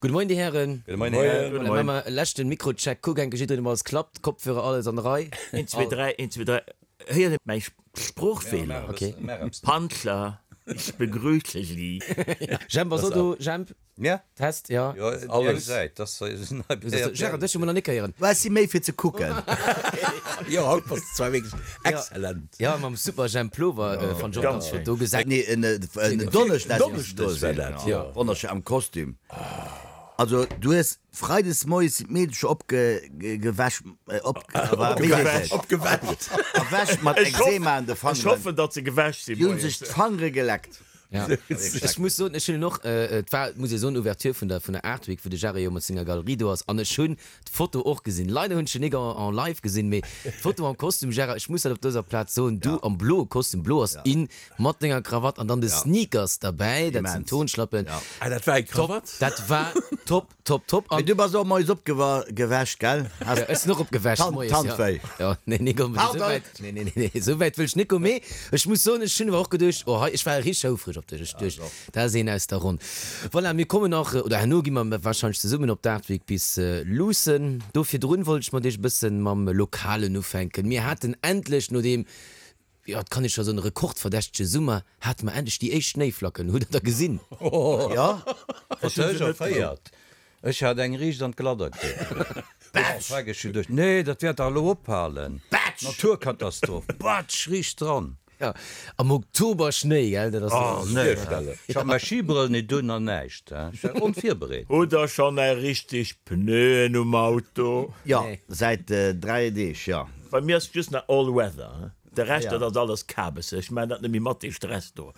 Gudde Moien, Dir Hären. Gudde Moien, Här. Gudde Moien. Maache mer e leschten Mikrocheck. Kuck enke jiddereen, ob alles klappt. Kopfhörer, alles an der Rei. Een, zwee, dräi, een, zwee, dräi. Héiert Dir mäi Sproochfeeler? Okay. Panzer, ich begrüße Sie. Jemp ass och do. Jemp? Ja. Test, ja. Jo, alles. Eng Säit, dass se nei Gérard, dech hu mer nach nik héieren. Mä ech si méi fir ze kucken. Jo, haut bass de zwar wierklech exzellent. Jo, mam super Jemp Plover, fannt ech och ganz flott do. Gesäit. Nee, en Donneschdeg Donneschdeg war dat, jo. Wonnerschéi am Kostüm. Also du hues Freides moies sinn d'Meedelcher opgewäsch, opgewäsch, erwächt mat Ekzema an de Fangeren. Ech hoffen, datt se gewäsch sinn Déi hunn sech d'Fangere geleckt. Ja, ech muss soen, ech hunn en och, et war, muss ee soen, Ouverture vun der, vun der Art Week, wou de Jarre jo mat senger Galerie do ass, an ech hunn d'Foto och gesinn. Leider hunn ech en nik en, en live gesinn, mee d'Foto am Kostüm, Gérard, ech muss dat op dëser Plaz soen, du am bloe Kostüm, blo ass in, mat denger Krawatt an dann de Sneakers derbäi, dat sinn Turnschlappen. Ah, dat war eng Krawatt? Dat war top. Top top an. Mee du bass och moies opgewächt, gell? Has Ech sinn och opgewächt moies, jo. Tandwéi. Jo, nee, nee, komm, esou Pardon. wäit, nee, nee, nee, esou wäit wëll ech net goen. Mee ech muss soen, ech hunn awer och geduecht, oh hei, ech war richteg houfreg op dech. Ech duecht, dat ass een aus der Ronn. Voilà, mir kommen nach, oder herno gi mer warscheinlech zesummen op d'Art Week bis luussen. Do virdrun wollt ech mat iech e bëssen mam Lokalen ufänken. Mir haten endlech, no deem Jo, et kann ee scho soen, rekordverdächtege Summer, hate mer endlech déi éischt Schnéiflacken. Hutt der der gesinn? Jo. Ech hu se net gesinn. Ech hat eng riicht an d'Gladder kritt. Batsch! Ech hu geduecht, nee, dat wäert dach elo ophalen. Batsch! Naturkatastroph, batsch, riicht dran. Jo, am Oktober Schnéi, gell, dat ass Oh, nee. Ech hat mäi Schibrëll nit un an näischt, ech war onvirbereet. Hutt der schonn är richteg Pneuen um Auto? Jo, säit 3 Deeg, jo. Bei mir ass just nach all weather, de Rescht dat ass alles Kabes. Ech maan dat net méi mat, dee Stress do.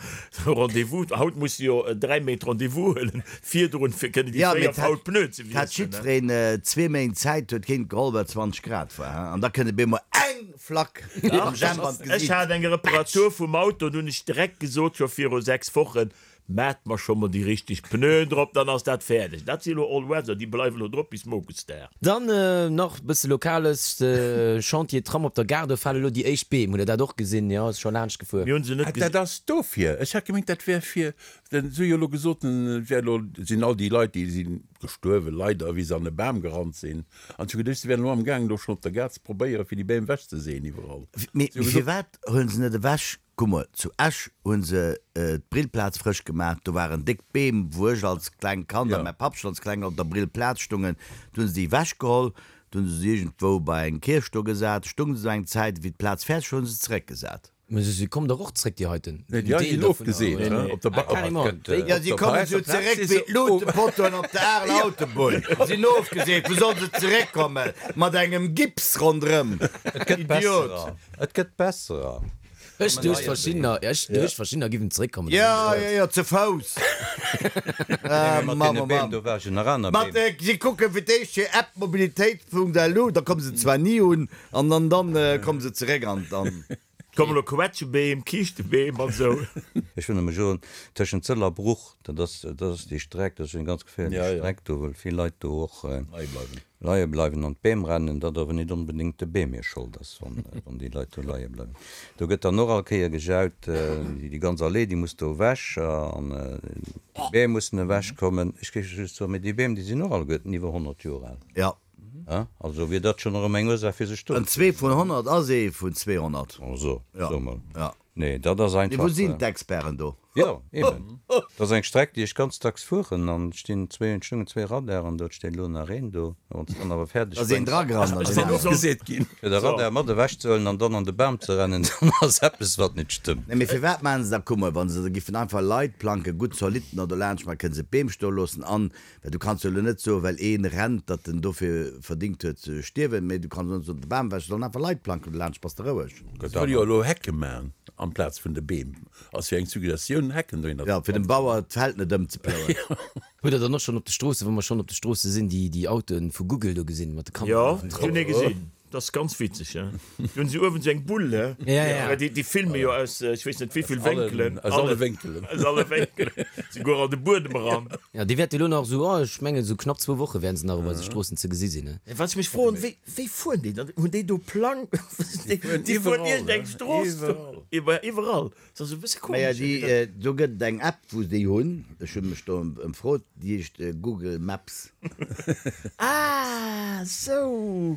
Rendez-vous, haut muss de jo 3 Méint Rendez-vous huelen virdrun fir kënnen déi fréier faul Pneuen ze wiesselen. Hat wiesselen. jiddwereen zwee Méint Zäit, huet keen geholl well 20 Grad war, he? An da kënnt op eemol eng Flack am Jemp an Ech d'Gesiit. hat eng Reparatur vum Auto, an hunn ech direkt gesot scho viru 6 Wochen, Maat mer scho mol déi richteg Pneuen drop, dann ass dat fäerdeg. Dat si elo All Weather, déi bleiwen elo drop bis Mokesdag. Dann nach bësse Lokales, de Chantier Tram op der Gare, do fale lo déi éischt Beem. Hutt der dat och gesinn? Jo, ass scho laanscht gefuer. Mir hunn se net Ah, dat gesinn. ass dofir. Ech hat gemengt, dat wär fir, denn se hu jo elo gesot, et wär elo, sinn all déi Leit, déi si gestuerwen, leider, wéi se an e Bam gerannt sinn. An ech hu geduecht, se wären elo amgaangen, do schonn op der Gare ze probéieren, fir déi Beem ewechzeseeën iwwerall. Mee Se hu gesot. firwat huelen se net ewech? Kuck mol, zu Esch hu se d'Brillplaz frësch gemaach, do waren déck Beem, wou ech als klengt Kand a mäi Papp schonn als Kleng op der Brillplaz stungen. Du hu se déi ewechgeholl, du hu se se iergendwou bei eng Kierch do gesat, stunge se do eng Zäit, wéi d'Plaz fäerdeg war, hu se se zeréckgesat. Mä se kommen dach och zréck, déi heiten. Nee, déi hei sinn ofgeseet, he, op der Ba-, Carrément, déi. Jo, si kommen esou zeréck wéi d'Luutepotoen op der Areler Autobunn. Sinn ofgeseet, wou solle se zeréckkommen? Mat engem Gips ronderëm. Et gëtt Idiot! besserer, et gëtt besserer. Ech duecht verschiddener, ech duecht verschiddener giffen zeréckkommen. Jo, jo, jo, ze Fouss. Nee, mee mat deene Beem, do war jo nach aner Mat, Beem. si kucken fir d'éischt hir App mobilitéit.lu, da komme se zwar ni un, an dann, dann komme se zeréck an dann. Kommen elo Quetschebeem, Kiischtebeem an esou. Ech wëll nëmme soen, tëschent Sëll a Bruch, dat ass, dat ass déi Streck, dat ass jo eng ganz geféierlech Streck do, well vill Leit do och leie bleiwen an d'Beem rennen, dat awer nit onbedéngt de Beem hir Schold ass, wann déi Leit do leie bleiwen. Do gëtt dann och all Kéier gejaut, déi ganz Allee, déi muss do ewech an déi Beem mussen ewech kommen. Ech géif just soen, mee déi Beem, déi sinn och alleguerten iwwer 100 Joer al. Jo. Also wier dat schonn erëm eng Ursaach fir sech do. En zwee vun 100 ass ee vun 200. Also, so mol. Jo. Nee, dat ass Mee einfach. wou sinn d'Experten do? Jo, eben. Dat ass eng Streck, déi ech ganz dacks fueren an et stinn zwee, et stungen zwee Radaren do, et steet elo nach een do. A wann s de dann awer fäerdeg Da ass een bréngs, dragerannt an Ass deen deen aneren. ofgeseet ginn? fir de Radar mat ewech ze huelen an dann an de Bam ze rennen, dann ass eppes, wat net stëmmt. Nee, mee firwat maachen se da? Kuck mol, wa se da giffen einfach Leitplanke gutt zolidd no dolaanscht maachen, kënne se d'Beem stoe loossen an, well du kanns jo elo net soen, well ee rennt, datt en dofir verdingt huet ze stierwen, mee du kanns och net soen, de Bam ewech, se sollen einfach Leitplanken dolaanscht, bass de roueg. Se wëlle jo elo Hecke maachen amplaz vun de Beem. Ass jo eng Suggestioun, Hecken dohinner Jo, ze fir dem planzen. Bauer d'Feld net ëmzeplouen. Hutt der dann och schonn op de Stroossen, wa mer schonn op de Stroosse sinn, déi déi Autoen vu Google do gesinn mat de Jo, Kameraen ech hunn ee drop? gesinn. Dat ass ganz witzeg, he. Do hunn se uewen esou eng Bull, he. Ja, ja. Well déi, déi filme jo aus, ech weess net wéivill Wénkelen. Aus alle Wénkelen. Aus alle Wénkelen. Souguer an de Buedem eran. Ja, déi wäerte elo nach esou, oh, ech mengen esou knapp zwou Woche wäerten se nach op eise Stroossen ze gesi sinn, he. Wat ech mech froen, wéi, wéi fueren déi dann? Hunn déi do Plang? Déi fueren iergend eng Strooss do. Iwwer, iwwerall. Dat ass e bësse Maja, komesch. déi, do gëtt et eng App, wou se déi hunn. Ech hu mech do ëmfrot, déi heescht Google Maps. Ah, sou.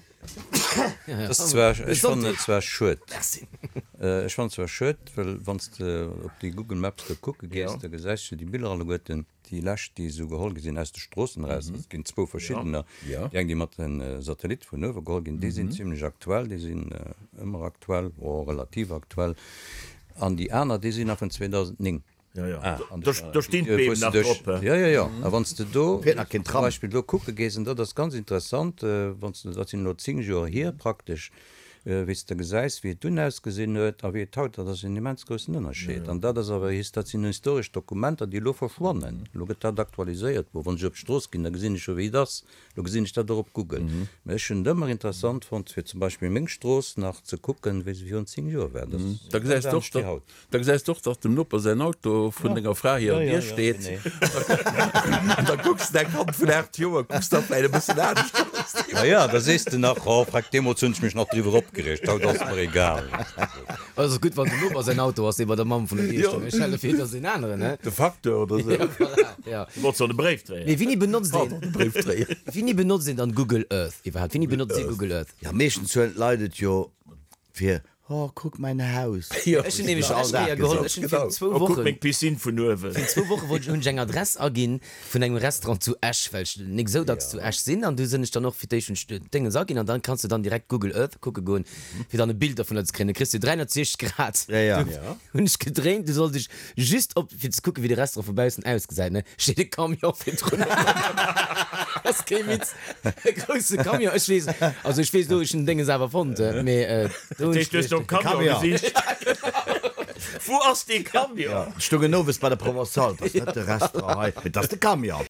Dat ass zwar, ech fannen et zwar schued. Ech fannen et zwar schued, well wann s de op déi Google Maps do kucke gees, da gesäis du déi Biller alleguerten. Déi lescht, déi esou geholl gi sinn aus de Stroossen eraus, et ginn zwou verschiddener, déi eng, déi mat de Satellitte vun uewe geholl ginn, déi sinn zimlech aktuell, déi sinn ëmmer aktuell, oh, relativ aktuell, an déi aner, déi sinn nach vun 2009. Jo, jo, do stinn d'Beem nach drop. Jo, jo, jo, a wann s de do zum Beispill do kucke gees, an dat ass ganz interessant, wann s de, dat sinn elo 10 Joer hier praktesch, Wéi s de gesäis, wéi et dunn ausgesinn huet a wéi et haut ass, ass en immens groussen Ënnerscheed. An dat ass awer, dat sinn historesch Dokumenter, déi elo verschwannen. Elo gëtt dat aktualiséiert. Bon, wann ech op d'Strooss ginn, da gesinn ech jo, wéi et ass. Elo gesinn ech dat och op Google. Mä ech hunn et ëmmer interessant fonnt, fir zum Beispill meng Strooss nach ze kucken, wéi se virun 10 Joer war. Dat ass ganz anescht wéi haut. Da gesäis de och, datt dem Noper säin Auto vun denger Fra hirer Dier steet. An da kucks de däi Kand vun 8 Joer, kucks da vläicht e bëssen anescht aus. Ma ja, da sees de nach, Oh, freck, deemools hunn ech mech nach driwwer opgereegt, haut ass et mer egal. Et ass gutt, wann dem Noper säin Auto ass, dee bei der Mamm vun der Dier stoung. Ech hale fir, et ass een aneren, he? De Facteur oder esou. Ja, voilà, ja. Du wollts doch de Bréifdréier. Mee wéini benotzt een, Pardon, de Bréifdréier. wéini benotzt een dann Google Earth iwwerhaapt? Wéini benotzt Dir Google Earth? Ja, meeschtens huelen d'Leit et jo fir Oh, kuck mäin Haus. Ech hunn nämlech all Dag geholl. Ech hunn fir zwou Oh, kuck Wochen, meng Piscine vun uewen. fir zwou Woche wollt ech, hunn ech eng Adress aginn vun engem Restaurant zu Esch, well ech nik esou dacks zu Esch sinn. An du sinn ech dann och fir d'éischt hunn ech d'Déngens aginn an dann kanns de dann direkt Google Earth kucke goen, fir dann e Bild dervunner ze kréien. Da kriss de 360 Grad. Ja, ja. Hunn ech gedréint, du sollt ech just op, fir ze kucken, wéi de Restaurant vu baussen ausgesäit, ne, steet e Camion virdrun. Dat ass kee Witz, e grousse Camion. Ech weess, also ech weess elo, ech hunn den Dénges awer fonnt, mee do hunn ech. Dat heescht, du hues nom Camion gesicht? Wou ass dee Camion? Ech stoungen owes bei der Provençale, 't ass net de Restaurant hei, mee 't ass de Camion.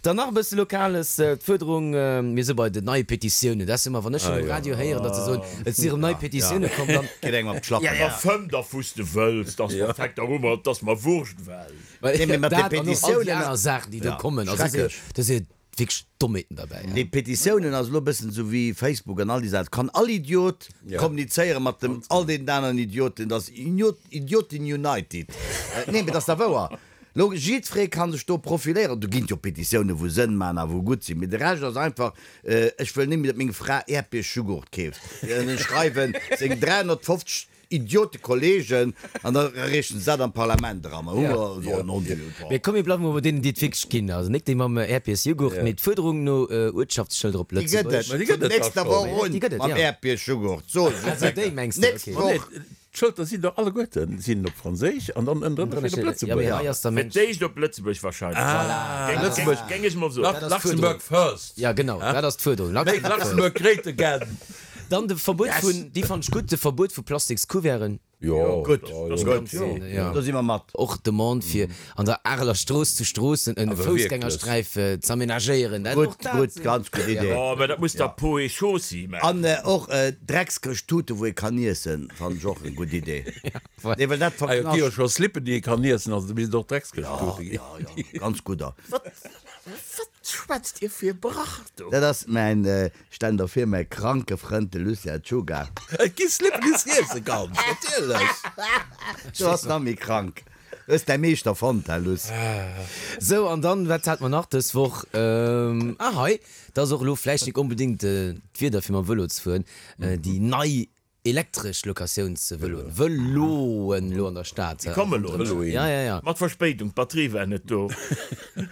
Dann nach e bësse Lokales, d'Fuerderung, mir si bei den neie Petitiounen, dat ass ëmmer, wann ech schonn um Radio héieren, datt se soen, et si erëm nei Petitioune komm, dann. Geet engem op d'Schlappen. Ma fëmm da wou s de wëlls, 't ass mer fekt der Hummer, 't ass mer Wurscht well. Nee, mee mat de Dat an och all déi Petitiounen. aner Saachen, déi do kommen, also Schrecklech. do si wierklech Dommheeten derbäi. Déi Petitiounen ass elo e bëssen esou wéi Facebook an all déi Saachen, kann all Idiot kommunizéiere mat dem all deenen aneren Idioten, dat ass Idioten United. Nee, mee dat ass da wouer. Lo, jiddweree kann sech do profiléieren. Do ginn et jo Petitiounen, wou Sënn maachen a wou gutt sinn. Mee de Rescht ass einfach, Ech wëll net méi, datt meng Fra Äerdbierjugurt keeft. An da schreiwen seng 350 Idiotekollegen an da reechen se dat am Parlament eran. A hu mer esou en Ondieu. Mee komm, mir bleiwe mol bei deenen, déi et wierklech ginn. Also nik déi mam Äerdbiersjugurt, mee d'Fuerderung no Uertschaftsschëlder op Déi gëtt Lëtzebuerg. et vun nächster Woch un Déi gëtt et, mam jo. Äerdbiersjugurt. Soen ech Also déi mengs de, Nächst okay. Woch. D'Schëlter sinn dach alleguerten sinn op Franséisch an dann ënnendrënner steet op Lëtzebuergesch. Fir d'éischt op Lëtzebuerg wahrscheinlech. Ah, Lëtzebuerg. Géing ech mol soen. Luxembourg first. Ja genau, dat ass d'Fuerderung. Make Luxembourg great again. Dann de Verbuet vun, déi fannt ech gutt, de Verbuet vu Plastikscouverten. Jo, gutt, gutt, do si mer mat. Och d'Demande fir an der Areler Strooss zu Stroossen e Foussgängersträif z'amenagéieren. Gutt, gutt, ganz gutt Idee. Jo, mä dat muss da Peau et Chaussée maachen. An och Dreckskëscht-Tute wou ee kann iessen, fannen ech och eng gutt Idee. Nee, well dat Ah jo, et gi jo verknascht. scho Slippen déi ee kann iessen, also do misst et och Dreckskëscht-Tute ginn. Jo, jo, ganz gudder. Wat, wat schwätzt Dir fir e Brach do? Dat ass mäin, stell der vir, mäi kranke Frënd de Lucien Czuga. Et gi Slippen déi s de iesse kanns, natierlech. Du ass nach méi krank. Hues däi Meeschter fonnt, hä Luss? Sou, an dann, wat hat mer nach dës Woch? Ah, hei, dat ass och elo vläicht nik onbedéngt d'Wieder fir mam Vëlo ze fueren, déi nei elektresch Locatiounsvëloen, Vëloen elo an der Stad. Déi kommen elo, ne? Ja, ja, ja. Mat Verspéidung, d'Batterie war net do.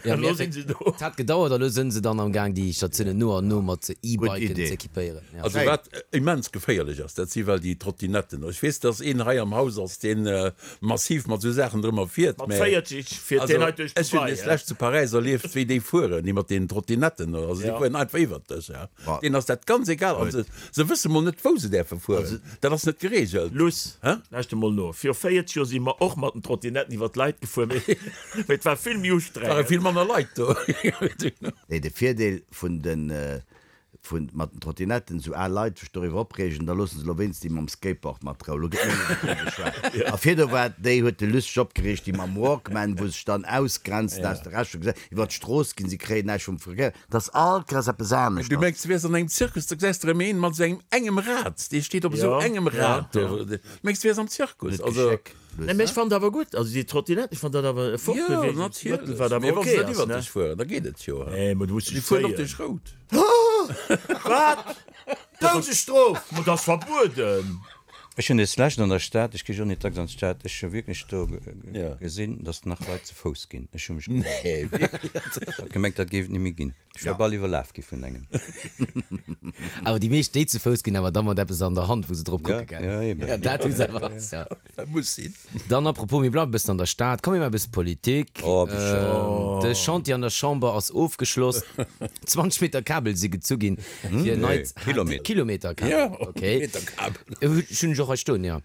Ja, Elo sinn se do. Et hat gedauert, a lo sënn se dann am Gaang, déi Statiounen no an no mat E-Biken ze equipéieren. Ja. Also wat immens geféierlech ass, dat si well déi Trottinetten. Ech weess, dass een hei am Haus ass, deen massiv mat esou Saachen drëmmer fiert, Mat mä 40 fiert also deen hei duerch ech hunn Dubai, des lescht zu Paräis erlieft, wéi déi fueren, déi mat deenen Trottinetten, also déi Ja. fueren einfach iwwert dech, ja. Deenen ass dat ganz egal an se, se wësse mol net, wou se däerfe fueren. Dat ass net geregelt. Luss, lauschter mol no, Viru 40 Joer si mer och mat den Trottinetten iwwer d'Leit gefuer, mee et war vill méi ustrengend. Ware vill manner Leit do. Nee, de Virdeel vun den vun mat den Trottinetten, esou al Leit sech doriwwer opreegen, da loosse se elo wéinst déi mam Skateboard mat Rou. Elo gëtt net méi doriwwer geschwat. A virdu war déi, huet de Luss sech opgereegt, déi mam Walkman, wou sech dann ausgrenzen aus de Rescht vum Gesell, iwwer d'Strooss ginn, si kréien näischt vum Verkéier. Et ass all Kéiers eppes aneschters. Du mengs, du wäers an engem Zirkus, da gesäis de erëm een mat esou engem engem Rad, dee steet op esou engem Rad do. Du mengs, du wäers am Zirkus. Net Geschéck. Nee, mee ech fannen dat awer gutt, also déi Trottinette, ech fannen dat awer e Fortbewegungsmëttel, wat awer ok ass, ne? Mee wa se net iwwert dech fueren, da geet et jo. Nee, mee du muss Déi dech fueren och zéien. duerch Rout. Wat? Doudesstrof! Ma dat ass verbueden! Ech hunn des Lescht an der Stad, ech gi jo net dacks an d'Stad, ech hu wierklech do gesinn, datt nach Leit ze Fouss ginn. Ech hu mech gewonnert. Ech hat gemengt, dat géif et net méi ginn. Ech wär bal iwwerlaf gi vun engem. Awer déi meescht déi ze Fouss ginn, awer da mat eppes an der Hand, wou se drop kucke gell. Ja, eben. Ja, dat hu se awer. Ja. Dat muss sinn. Dann apropos, mir bleiwe bëssen an der Stad, komm mir maache bësse Politik. Oh, wéi schéin. De Chantier an der Chamber ass ofgeschloss. 20 Meter Kabel si gezu ginn fir en neit Kilometer. Kilometer Kabel, Ja, okay. Meter Kabel. Ech hunn ech och hei stoen, jo.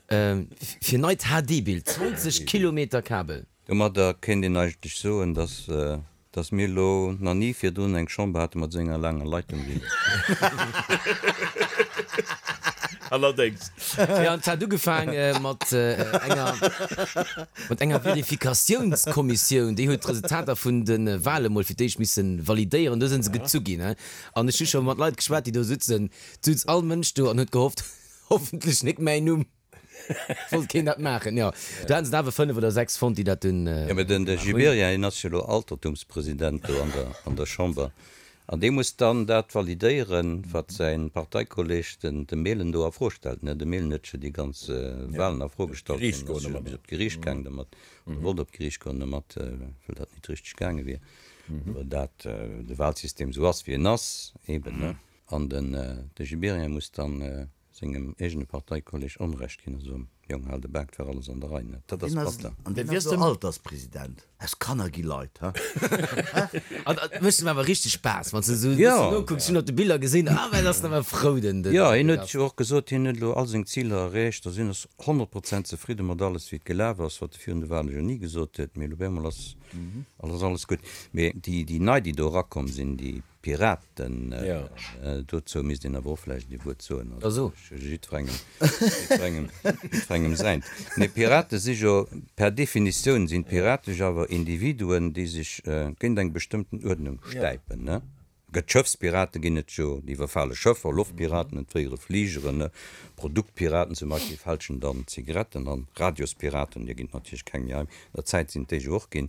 Fir neit HD-Bild, 20 Kilometer Kabel. Domadder kéint een eigentlech soen, dass Dass mir elo nach ni virdrun eng Chamber hate mat esou enger laanger Leitung wéi elo. Allerdéngs. Jo, an et hat ugefaange mat enger, mat enger Verifikatiounskommissioun. Déi huet d'Resultater vun de Wale mol fir d'éischt misse validéieren. Do si se gezu ginn. An ech hu scho mat Leit geschwat, déi do sutzen. Et sutz all Mënsch do an huet gehofft, Hoffentlech nik mäin Numm. Wollt keen dat maachen, jo. Do haten se der awer 5 oder 6 fonnt, déi dat dunn Jo, mä den gemaach hunn. Gibéryen, hien ass jo elo Altertumspresident do an der, an der Chamber, an dee muss dann dat validéieren, wat säi Parteikolleg, den, de Mehlen, do a Fro stellt, ne? De Mehlen huet jo déi ganz Wahlen a Fro gestallt, Geriicht deen goen ass jo domat. bis op d'Geriicht gaang domat, oder wollt op d'Geriicht goen domat, well dat nit richteg gaange wier, well dat, de Wahlsystem esou ass, wéi en ass, eben, ne? An den, de Gibéryen muss dann sengem eegene Parteikolleg Onrecht ginn a soen, Jong, hal de Bak, 't war alles an der Rei, ne? Dat ass batter. An deen ass elo Alterspresident. Aus Kanner gi Leit, ha? An et mécht em awer richteg Spaass, wann s de esou e bëssen nokucks. Ech hunn op de Biller gesinn, ah, well ass en awer frou, den Jo, hien huet jo och gesot, hien huet elo all seng Ziler erreecht a sinn ass 100 Prozent zefridde mat alles, wéi et gelaf ass, wat e virun de Wale jo ni gesot huet. Mee elo op eemol ass alles gutt. Mee déi nei, déi do erakomm sinn, déi Piraten, dozou misst een awer och vläicht ee Wuert soen, also jiddwerengem, jiddwerengem, jiddwerengem säint. Mee Pirate si jo, per Definitioun sinn d'Pirate jo awer Individuen, déi sech géint eng bestëmmten Uerdnung stäipen, ne? Gëtt Schëffspirate ginn et jo, déi iwwerfale Schëffer, Loftpiraten entféiere Fligeren, ne? Produktpiraten zum Beispill fälschen dann Zigaretten an Radiospiraten, deer ginn et natierlech keng méi hei, an der Zäit sinn et déi jo och ginn,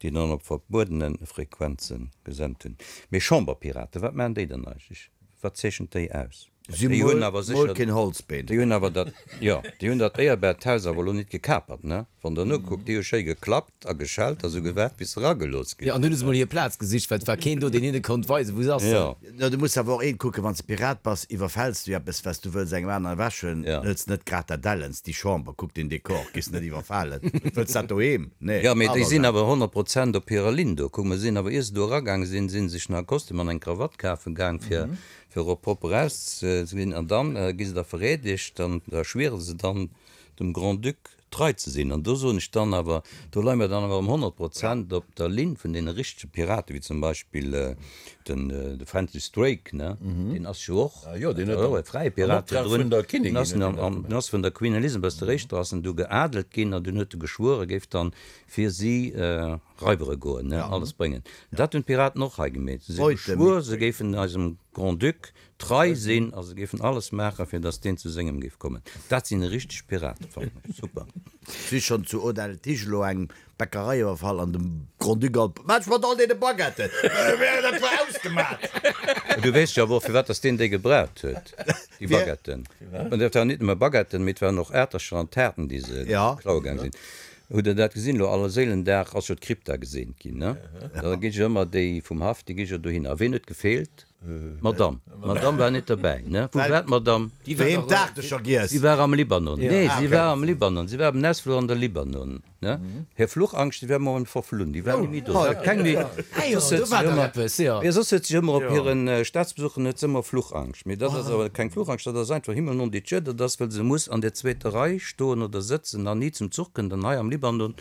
déi dann op verbuedene Frequenze gesent hunn. Mee Chamberpiraten, wat maachen déi dann eigentlech? Wat zeechent déi aus? Si Déi hunn awer mol sécher, keen Holzbeen. déi hunn awer dat, jo, déi hunn dat éierbart Haus awer elo nit gekapert, ne? Wann Der nokuckt, déi hu schéi geklappt a geschellt a sou gewaart, bis se eragelooss Jo, ginn. an dunn hu se mol hir Plaz gesicht, well et war keen do, deen hinne konnt weisen, wou se ass. Jo. No, du muss awer och eent kucken, wann s de Pirat bass, iwwerfäls du eppes, wat s du wëlls engem aneren ewechhuelen, Ja. hëls net grad dat Ellens, déi Chamber, kuck den Dekor, gees net iwwerfalen, wëlls dat doheem? Nee, Jo, mee déi awer sinn dat. awer 100 Prozent op hirer Linn do. Kuck, mer sinn awer, ier se do eragaange sinn, si sech nach e Kostüm an eng Krawatt kafe gaang, fir, fir och propper auszesinn. An dann gi se da vereedegt an da schwiere se dann dem Grand-Duc trei ze sinn. An do soen ech dann awer, do leie mer dann awer ëm 100 Prozent op der Linn vun deene richtege Piraten, wéi zum Beispill den de Francis Drake, ne, deen ass jo och e fräie Pirat virdrun, deen ass an ass vun der Queen Elizabeth der Éischter ass en du geadelt ginn an dunn huet e geschwuer, e géif dann fir si raibere goen, ne, alles bréngen. Dat hunn d'Piraten och hei gemeet, se hu geschwuer, se géifen eisem Grand-Duc Trei sinn a se géifen alles maachen, fir datt deen zu sengem géif kommen. Dat sinn richteg Piraten, fannen ech. Super. Si schonn zu Audel-Tige elo eng Bäckerei iwwerfall an dem Grand-Duc all Wat mat all deene Baguetten? Dat war ausgemat! Du weess jo awer och, firwat datt deen déi gebraucht huet, déi Baguetten. An dat waren nit nëmme Baguetten, mee et waren och Aertercher an Taarten, déi se klaue gaang sinn. Hutt Der dat gesinn? Elo Allerséilendag ass jo d'Krypta geseent ginn, ne? Da gi jo ëmmer déi vum Haff, déi gi jo dohinner. A ween huet gefeelt? D'Madame. D'Madame war net derbäi, ne? Wou war d'Madame? Déi war Doheem d'Aartecher giess. Si war am Libanon. Nee, si war am Libanon. Si war beim Ausfluch an de Libanon, ne? Hir Fluchangscht, déi war mol verflunn. Déi war ni méi do. Si hat keng méi. Soss huet si ëmmer, jo, soss huet si ëmmer op hire Staatsbesuchen huet se ëmmer Fluchangscht. Mee dat ass awer keng Fluchangscht, dat ass einfach Himmel non dit Dieu. Dat ass, well se muss an der zweeter Rei stoen oder sëtzen an ni zum Zuch kënnt. An hei am Libanon,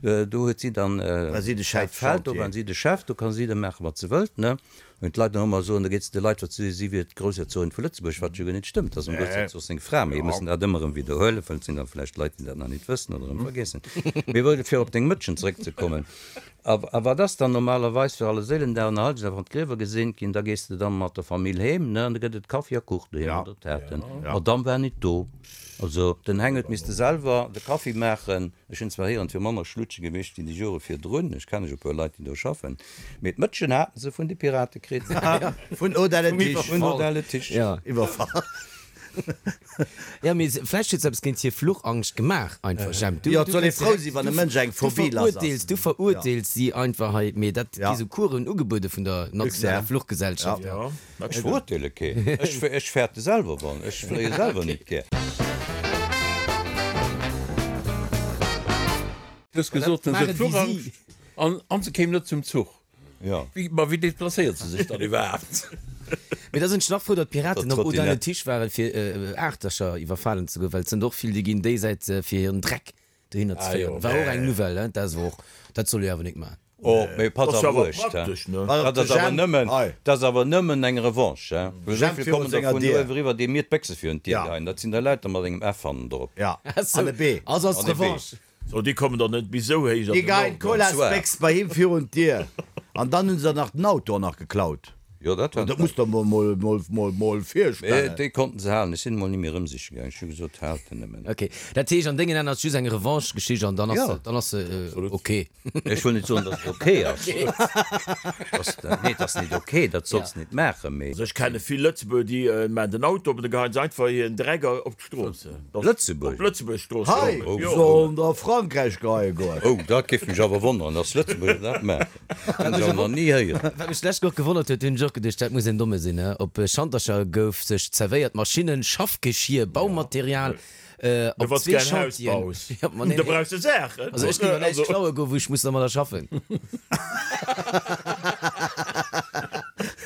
do huet si dann dat Feld, do war si de Chef, do ka si da maachen, wat se wëllt, ne? Wenn d'Leit nach ëmmer soen, da geet se de Leit wat si si wier d'Groussherzogin vu Lëtzebuerg, wat jo guer net stëmmt, ass dem Groussherzog seng Fra, mee mir mussen dat ëmmer erëm widderhuelen, well et sinn da vläicht Leit, déi dat nach nit wëssen oder erëm vergiessen. Mee wou, fir op deng Mëtschen zeréckzekommen, a a wat ass dann normalerweis fir Allerséilendag an Allerheiligendag, wann d'Griewer geseent ginn, da gees de dann mat der Famill heem, ne, an da gëtt et Kaffi a Kuch doheem oder Taarten. D'Madame war nit do, also den Heng huet misste selwer de Kaffi maachen. Ech hunn zwar héieren, et wier manner Schlutsche gewiescht wéi déi Jore virdrun, ech kenne jo e puer Leit, déi do schaffen, Mee d'Mëtschen haten se vun de Pirate kritt. Vun Odelle Tisch. Vun Odelle Tisch. Iwwerfall. Jo, mee vläicht huet se eppes géint hir Fluchangscht gemaach einfach, Jemp. Jo, et soll ee frou sinn, wann e Mënsch eng Phobie lass ass. Du verurteels si einfach hei, mee dat gi sou Coursen ugebuede vun der nationaler Fluchgesellschaft. Ech verurteele keen. Ech fäerte selwer wann. Ech fléie selwer nit gär. Du hues gesot, se huet Fluchangscht. An an se kéim net zum Zuch. Jo. Wéi, ma wéi deplacéiert se sech dann iwwerhaapt? Mee da sinn ech nach frou, datt d'Piraten op Odile Tisch waren, fir Aachtercher iwwerfalen ze goen, well et sënn och vill, déi ginn déi Säit fir hiren Dreck dohinner ze féieren. War och eng Nouvelle, hein? Dat ass awer och, dat soll ee awer nik maachen. Oh, mee pass awer uecht, hein. Dat ass awer nëmmen, dat ass awer nëmmen eng Revanche, hein. Well esou vill kommen der vun uewe eriwwer, déi mir d'Béchse virun d'Dier geheien. Dat sinn der lauter mat engem F hannendrop. An e B. Also ass d'Revanche. So, déi kommen dann net bis esou héich an den Norden. Déi geien d'Colasbéchs bei him virun d'Dier. An dann hunn se der nach den Auto och nach geklaut. Jo, dat war. Dat muss der mol, mol, mol, mol, mol virstellen. Mee déi konnten se halen. Ech sinn emol ni méi erëm siche gaangen. Ech hu gesot, haalt en nëmmen. Ok, dat heescht an dengen Aen ass et just eng Revanche-Geschicht an dann ass se, dann ass se ok. Ech wëll net soen, datt et ok ass. Nee, et ass net ok, dat solls de net maachen, mee. Also ech kenne vill Lëtzebuerger, déi maachen den Auto op an da geheien se einfach hiren Dreck op Strooss. Lëtzebuerg? Op Lëtzebuerg Strooss. Hei sollen der a Frankräich geheie goen. Oh, dat géif mech awer wonneren, dass Lëtzebuerger dat maachen. Dat hunn ech awer nach ni héieren. Wat mech d'lescht Woch gewonnert huet, hunn ech och geduecht, dat muss en Domme sinn, he? Op Schantercher gouf sech zerwéiert, Maschinnen, Schaffgeschier, Baumaterial, op zwee Chantieren. Ja, ma nee, Da brauchs de Saachen. Also ech géif awer näischt klaue goen, wou ech muss dermadder schaffen.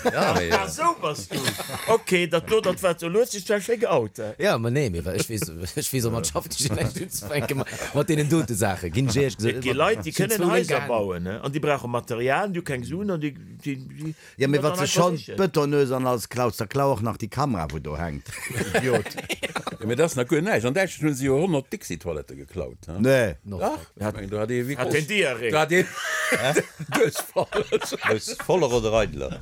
Ja, mee. Ah, sou bass du. Ok, dat do, dat war zu Luerzig, dat war schéi geout. Ja, ma nee, mee ech weess, ech weess och mat Schaffgeschier näischt unzefänken, mat deenen dote Saachen, ginn ech éierlech gesot. Et gi Leit, déi kënnen Haiser bauen, an déi brauche Material, déi hu keng Suen an déi, déi, déi. Jo, mee wann s de schonn d'Bëtonnues an alles klaus, da klau och nach déi Kamera, wou do hänkt, Idiot. Jo, mee dat ass nach guer näischt. An Däitschland hu se jo 100 Dixi-Toilettë geklaut, he? Nee. Dach, ech mengen, do hat ee wéi Hat gross, een Diarrhée? do hat een Duerchfall. Aus voller oder eideler?